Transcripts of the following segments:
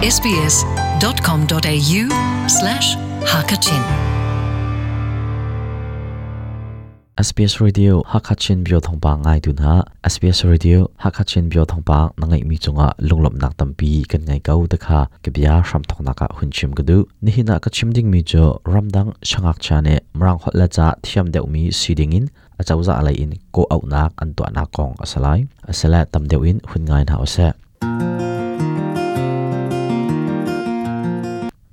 sbs.com.au slash hakachin SBS Radio Hakachin Bio Thawngpang ngaitu hna SBS Radio Hakachin Bio Thawngpang na ngeihmi cungah lunglawmhnak tampi kan ngei ko te kha ka bia hramthawknak ah hun chim ka duh. Nihin ah ka chim dingmi cu ramdang sangakcha nih Mirang holh le ca thiam deuhmi si dingin acozah lei in kawh-auhnak an tuahnak kong a si lai. Asile tam deuh in hun ngai hna usih.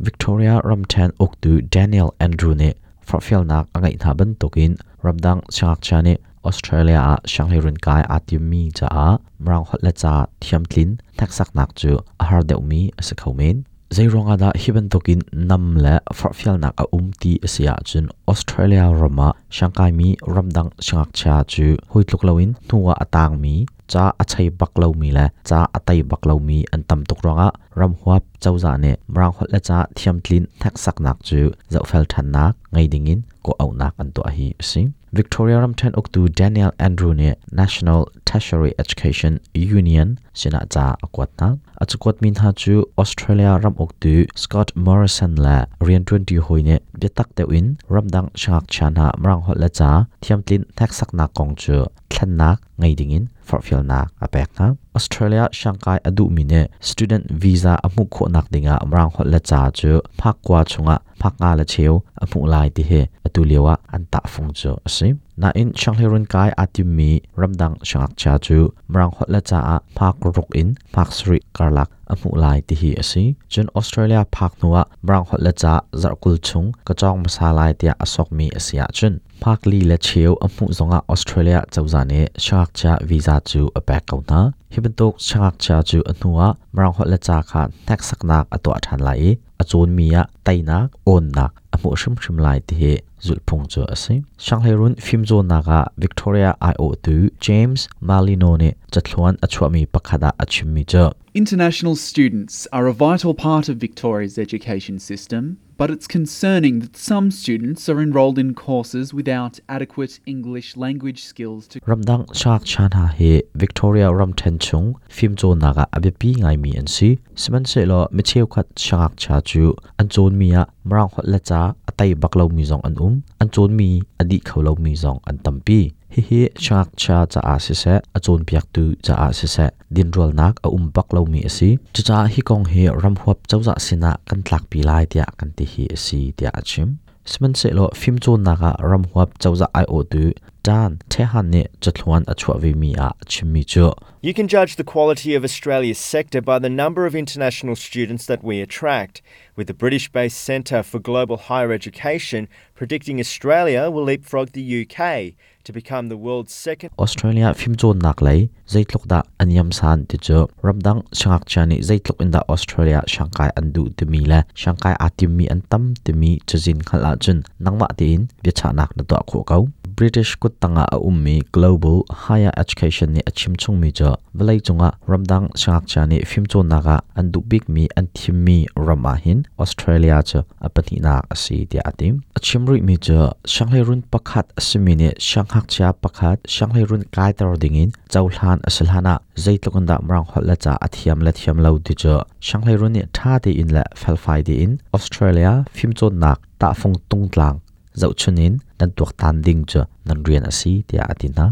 Victoria ramṭhen uktu Daniel Andrew nih forhfialnak a ngeih hna bantukin ramdang siangngakchia nih Australia ah sianghleiruun kai aa timmi caah Mirang holh le ca thiamtlin hneksaknak cu a har deuhmi a si kho men. Zeiruangah dah hi bantukin nam le forhfialnak a um ti a si ahcun Australia ram ah siangkaimi ramdang siangngakchia cu hawi tluk loin hnu ah a tangmi, ca a chei bak lomi le ca a tei bak lomi an tam tuk ruangah ramhuap cozah nih Mirang holh le ca thiamtlin hneksaknak cu zohfel ṭhannak ngei dingin kawh-auhnak an tuah hi a si. Victoria ramṭhen uktu Daniel Andrew nih National Tertiary Education Union sinah ca a kuat hna. A cakuatmi hna cu Australia ram uktu Scott Morrison le rianṭuanṭi hawi nih biatak deuh in ramdang siangngakchia hna Mirang holh le ca thiamtlin hneksaknak kong cu thlennak ngei dingin forhfialnak a pek hna. Australia siangkai a duhmi nih student visa a hmuh khawhnak dingah Mirang holh le ca cu hmakkua chungah hmaknga le cheu a hmuh lai ti hi atu lio ah an tahfung cu a si. Nain sianghleirun kai aa timmi ramdang siangngakchia cu Mirang holh le ca ah hmak ruk in hmak sarih karlak a hmuh lai ti hi a si. Cun Australia phak hnu ah Mirang holh le ca zarhkul chung ka cawng hmasa lai tiah a sokmi a si ahcun hmak li le cheu a hmuh zongah Australia cozah nih siangngakchia visa cu a pek ko hna. Hi bantuk siangngakchia cu a hnu ah Mirang holh le ca kha hneksaknak a tuah ṭhan lai i a cawnmi ah teinak, awnnak a hmuh hrimhrim lai ti hi zulhphung cu a si. Sianghleirun fimcawnnak ah Victoria aiawhtu James Malino nih cathluan a chuahmi pakhat ah a chimmi cu International students are a vital part of Victoria's education system, but it's concerning that some students are enrolled in courses without adequate English language skills to Ramdang siangngakchia hna hi Victoria ramṭhen chung fimcawnnak ah a biapi ngaimi an si. Sihmanhsehlaw mi cheukhat siangngakchia cu an cawnmi ah Mirang holh le ca a tei bak lomi zong an um. An cawnmi a dih kho lomi zong an tampi. Hihi siangngakchia caah siseh, a cawnpiaktu caah siseh, dinrualnak a um bak lomi a si. Cucaah hi kong hi ramhuap cozah sinah kan tlakpi lai tiah kan ti hi a si, tiah a chim. Sihmanhsehlaw fimcawnnak ah ramhuap cozah aiawhtu Dan Tehan nih cathluan a chuah vemi ah a chimmi cu You can judge the quality of Australia's sector by the number of international students that we attract, with the British based Centre for Global Higher Education predicting Australia will leapfrog the UK to become the world's second Australia fimcawnnak lei zeitluk dah an yamsan ti cu ramdang siangngakchia nih zeitluk in dah Australia siangkai an duh timi le siangkai aa timmi an tam timi cazin hngalh ahcun nangmah tein biachahnak na tuah khawh ko. British kuttang ah a ummi Global Higher Education nih a chim chungmi cu vawleicung ah ramdang siangngakchia nih fimcawnnak ah an duh bikmi an thimmi ram ah hin Australia cu a pahnihnak a si tiah a ti. A chim rihmi cu sianghleirun pakhat a simi nih siangngakchia pakhat sianghleirun kaiter dingin cohlan a si hlan ah zeitluk in dah Mirang holh le ca a thiam le thiam lo ti cu sianghleirun nih ṭha tein le felfai tein Australia fimcawnnak tahfung tungtlang zohchun in nan tuaktan ding cu nan rian a si tiah a ti hna.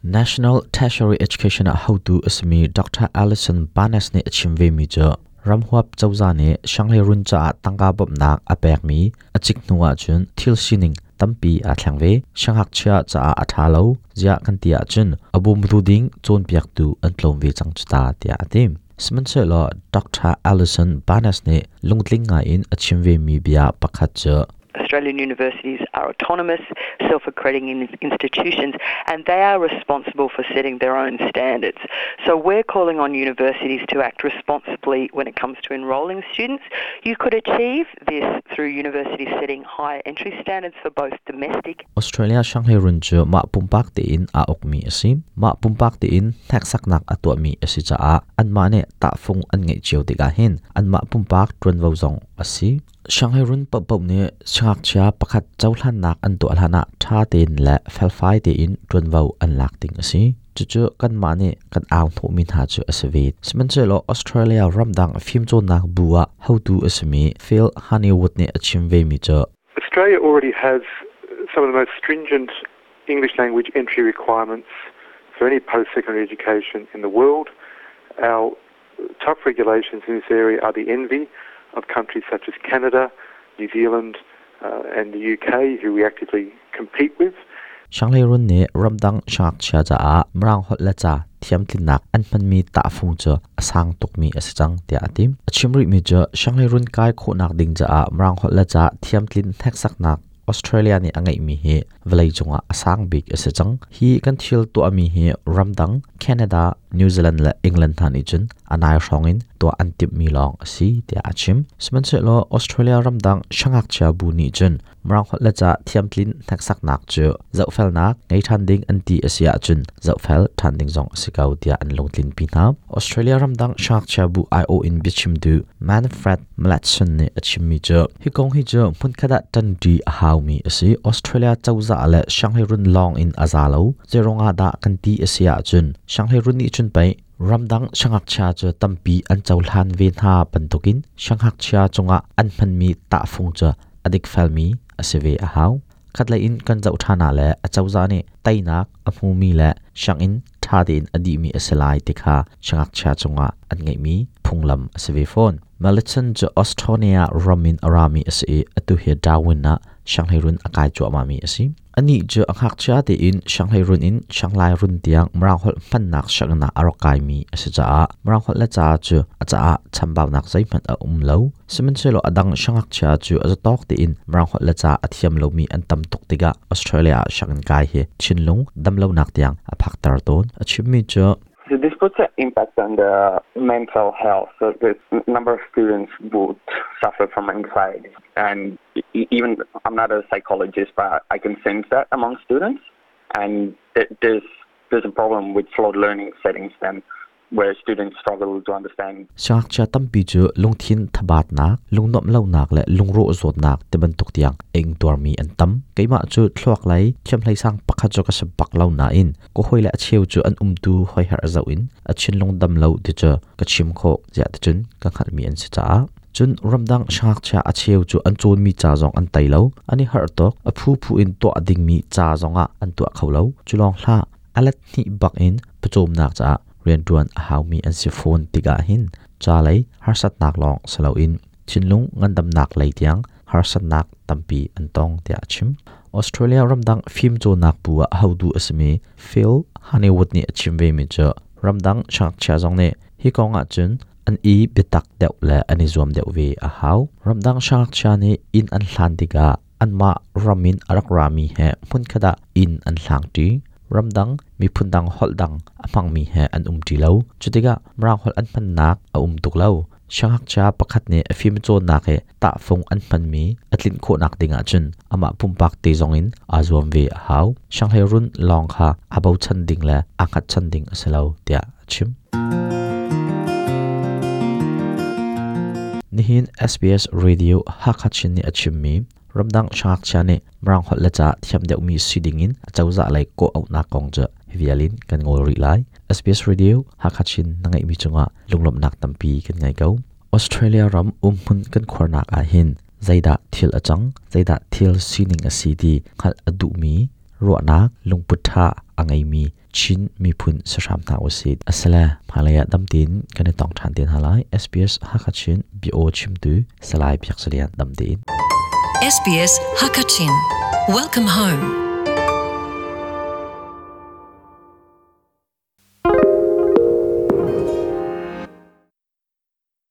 National Tertiary Education ah hotu a simi Dr. Alison Barnes nih a chim vemi cu ramhuap cozah nih sianghleirun caah tangka bawmhnak a pekmi a cik hnu ahcun thil sining tampi aa thleng ve. Siangngakchia caah a ṭha lo ziah kan ti ahcun a bawmtu ding cawnpiaktu an tlawm ve cang cu ta tiah a ti. Sihmanhsehlaw Dr. Alison Barnes nih lungtling ngaiin a chim vemi bia pakhat cu Australian universities are autonomous, self-accrediting institutions, and they are responsible for setting their own standards. So we're calling on universities to act responsibly when it comes to enrolling students. You could achieve this through universities setting higher entry standards for both domestic Australia Shanghai-run cu mah pumpak tein aa ukmi a si. Mah pumpak tein hneksaknak a tuahmi a si caah anmah nih tahfung an ngeih cio tikah hin anmah pumpak ṭuanvo zong a si. Shanghai run paohpaoh nih siangngakchia pakhat cohlannak an tuah hlanah ṭha tein le felfai tein ṭuanvo an lak ding a si. Cucu kanmah nih kan au hnawhmi hna cu a si ve. Sihmanhsehlaw Australia ramdang fimcawnnak bu ah hotu a simi Phil Honeywood nih a chim vemi cu Australia already has some of the most stringent English language entry requirements for any post-secondary education in the world. Our tough regulations in this area are the envy of countries such as Canada, New Zealand and the UK, who we actively compete with. Sianghleirun nih ramdang siangngakchia caah Mirang holh le ca thiamtlinnak an hmanmi tahfung cu a sang tukmi a si cang tiah a ti. A chim rihmi cu sianghleirun kai khawhnak ding caah Mirang holh le ca thiamtlin hneksaknak Australia nih a ngeihmi hi vawleicung ah a sang bik a si cang. Hi kan thil tuahmi hi ramdang Canada, New Zealand le England hna nih cun a nai hrawng in tuah an timhmi lawng a si tiah a chim. Sihmanhsehlaw Australia ramdang siangngakchia bu nih cun Mirang holh le ca thiamtlin hneksaknak cu zohfelnak ngei ṭhan ding an ti a si ahcun zohfel ṭhan ding zong a si ko tiah an lungtlinpi hna. Australia ramdang siangngakchia bu aiawh in biachimtu Manfred Mlatson nih a chimmi cu hi kong hi cu hmunkhat ah ṭanṭi a haumi a si. Australia cozah le sianghleirun lawng in a za lo. Zeiruangah dah kan ti a si ahcun sianghleirun nih cun pei ramdang siangngakchia cu tampi an cohlan ve hna bantukin siangngakchia cungah an hmanmi tahfung cu a dikfelmi a si ve a hau. Khatlei in kan zoh ṭhan ah le acozah nih teinak a hmumi le sianginn ṭha tein a dihmi a si lai ti kha siangngakchia cungah an ngeihmi phunglam a si ve fawn. Malitson cu Australia ram in a rami a si i atu hi Darwin ah sianghleirun a kai cuahmahmi a si. Anih cu a ngakchia tein sianghleirun in sianglairun tiang Mirang holh hmannak sianginn ah a rak kaimi a si caah Mirang holh le ca cu a caah chambaunak zeihmanh a um lo. Sihmanhsehlaw a dang siangngakchia cu a zatawk tein Mirang holh le ca a thiam lomi an tam tuk tikah Australia ah sianginn kai hi thinlung damlonak tiang a phakter tawn. A chimmi cu So this puts an impact on the mental health. So the number of students would suffer from anxiety. And even I'm not a psychologist, but I can sense that among students. And there's there's a problem with flawed learning settings then where students struggle to understand. Siangngakchia tampi cu lungthin thabatnak, lungnuamh lonak le lungrawh zawtnak ti bantuk tiang a ingtuarmi an tam. Keimah cu thluak lei thiamhlei sang pakhat cu ka si bak lo nain ka hawile a cheu cu an umtu hoiher zoh in a thinlung dam lo ti cu ka chim khawh ziah ticun ka hngalhmi an si caah cun ramdang siangngakchia a cheu cu an cawnmi ca zong an tei lo an i harh tuk a phuphu in tuah dingmi ca zong ah an tuah kho lo cu lawng hlah a let hnih bak in pawcawmnak caah rianṭuan a haumi an si fawn tikah hin ca lei harsatnak lawng si loin thinlung ngandamnak lei tiang harsatnak tampi an tong tiah a chim. Australia ramdang fimcawnnak bu ah hotu a simi Phil Honeywood nih a chim vemi cu ramdang siangngakchia zong nih hi kong ahcun an i biatak deuh le an i zuam deuh ve a hau. Ramdang siangngakchia nih inn an hlan tikah anmah ram in a rak rami he hmunkhat ah inn an hlangṭi. Ramdang miphun dang holh dang a hmangmi he an umṭi lo. Cutikah Mirang holh an hmannak a um tuk lo. Siangngakchia pakhat nih a fimcawnnak i tahfung an hmanmi a tlinh khawhnak ding ahcun amah pumpak te zongin aa zuam ve a hau. Sianghleirun lawng kha aa bochan ding le aa hngatchan ding a si lo tiah a chim. Nihin SBS Radio Hakha Chin nih a chimmi ramdang siangngakchia nih Mirang holh le ca thiam deuhmi si dingin acozah lei kawh auhnak kong cu hi vial in kan ngawl rih lai. SBS Radio Hakha Chin na ngeihmi cungah lunglawmhnak tampi kan ngei ko. Australia ram umhmun kan khuarnak ah hin zeidah thil a cang, zeidah thil sining a si ti hngalh a duhmi ruahnak lungput ṭha a ngeimi Chin miphun si hram hna usih. Asile hmailei ah dam tein kan i tong ṭhan te hna lai. SBS Hakha Chin bia chimtu Salai Biak Salian dam tein. SBS Hakachin. Welcome home.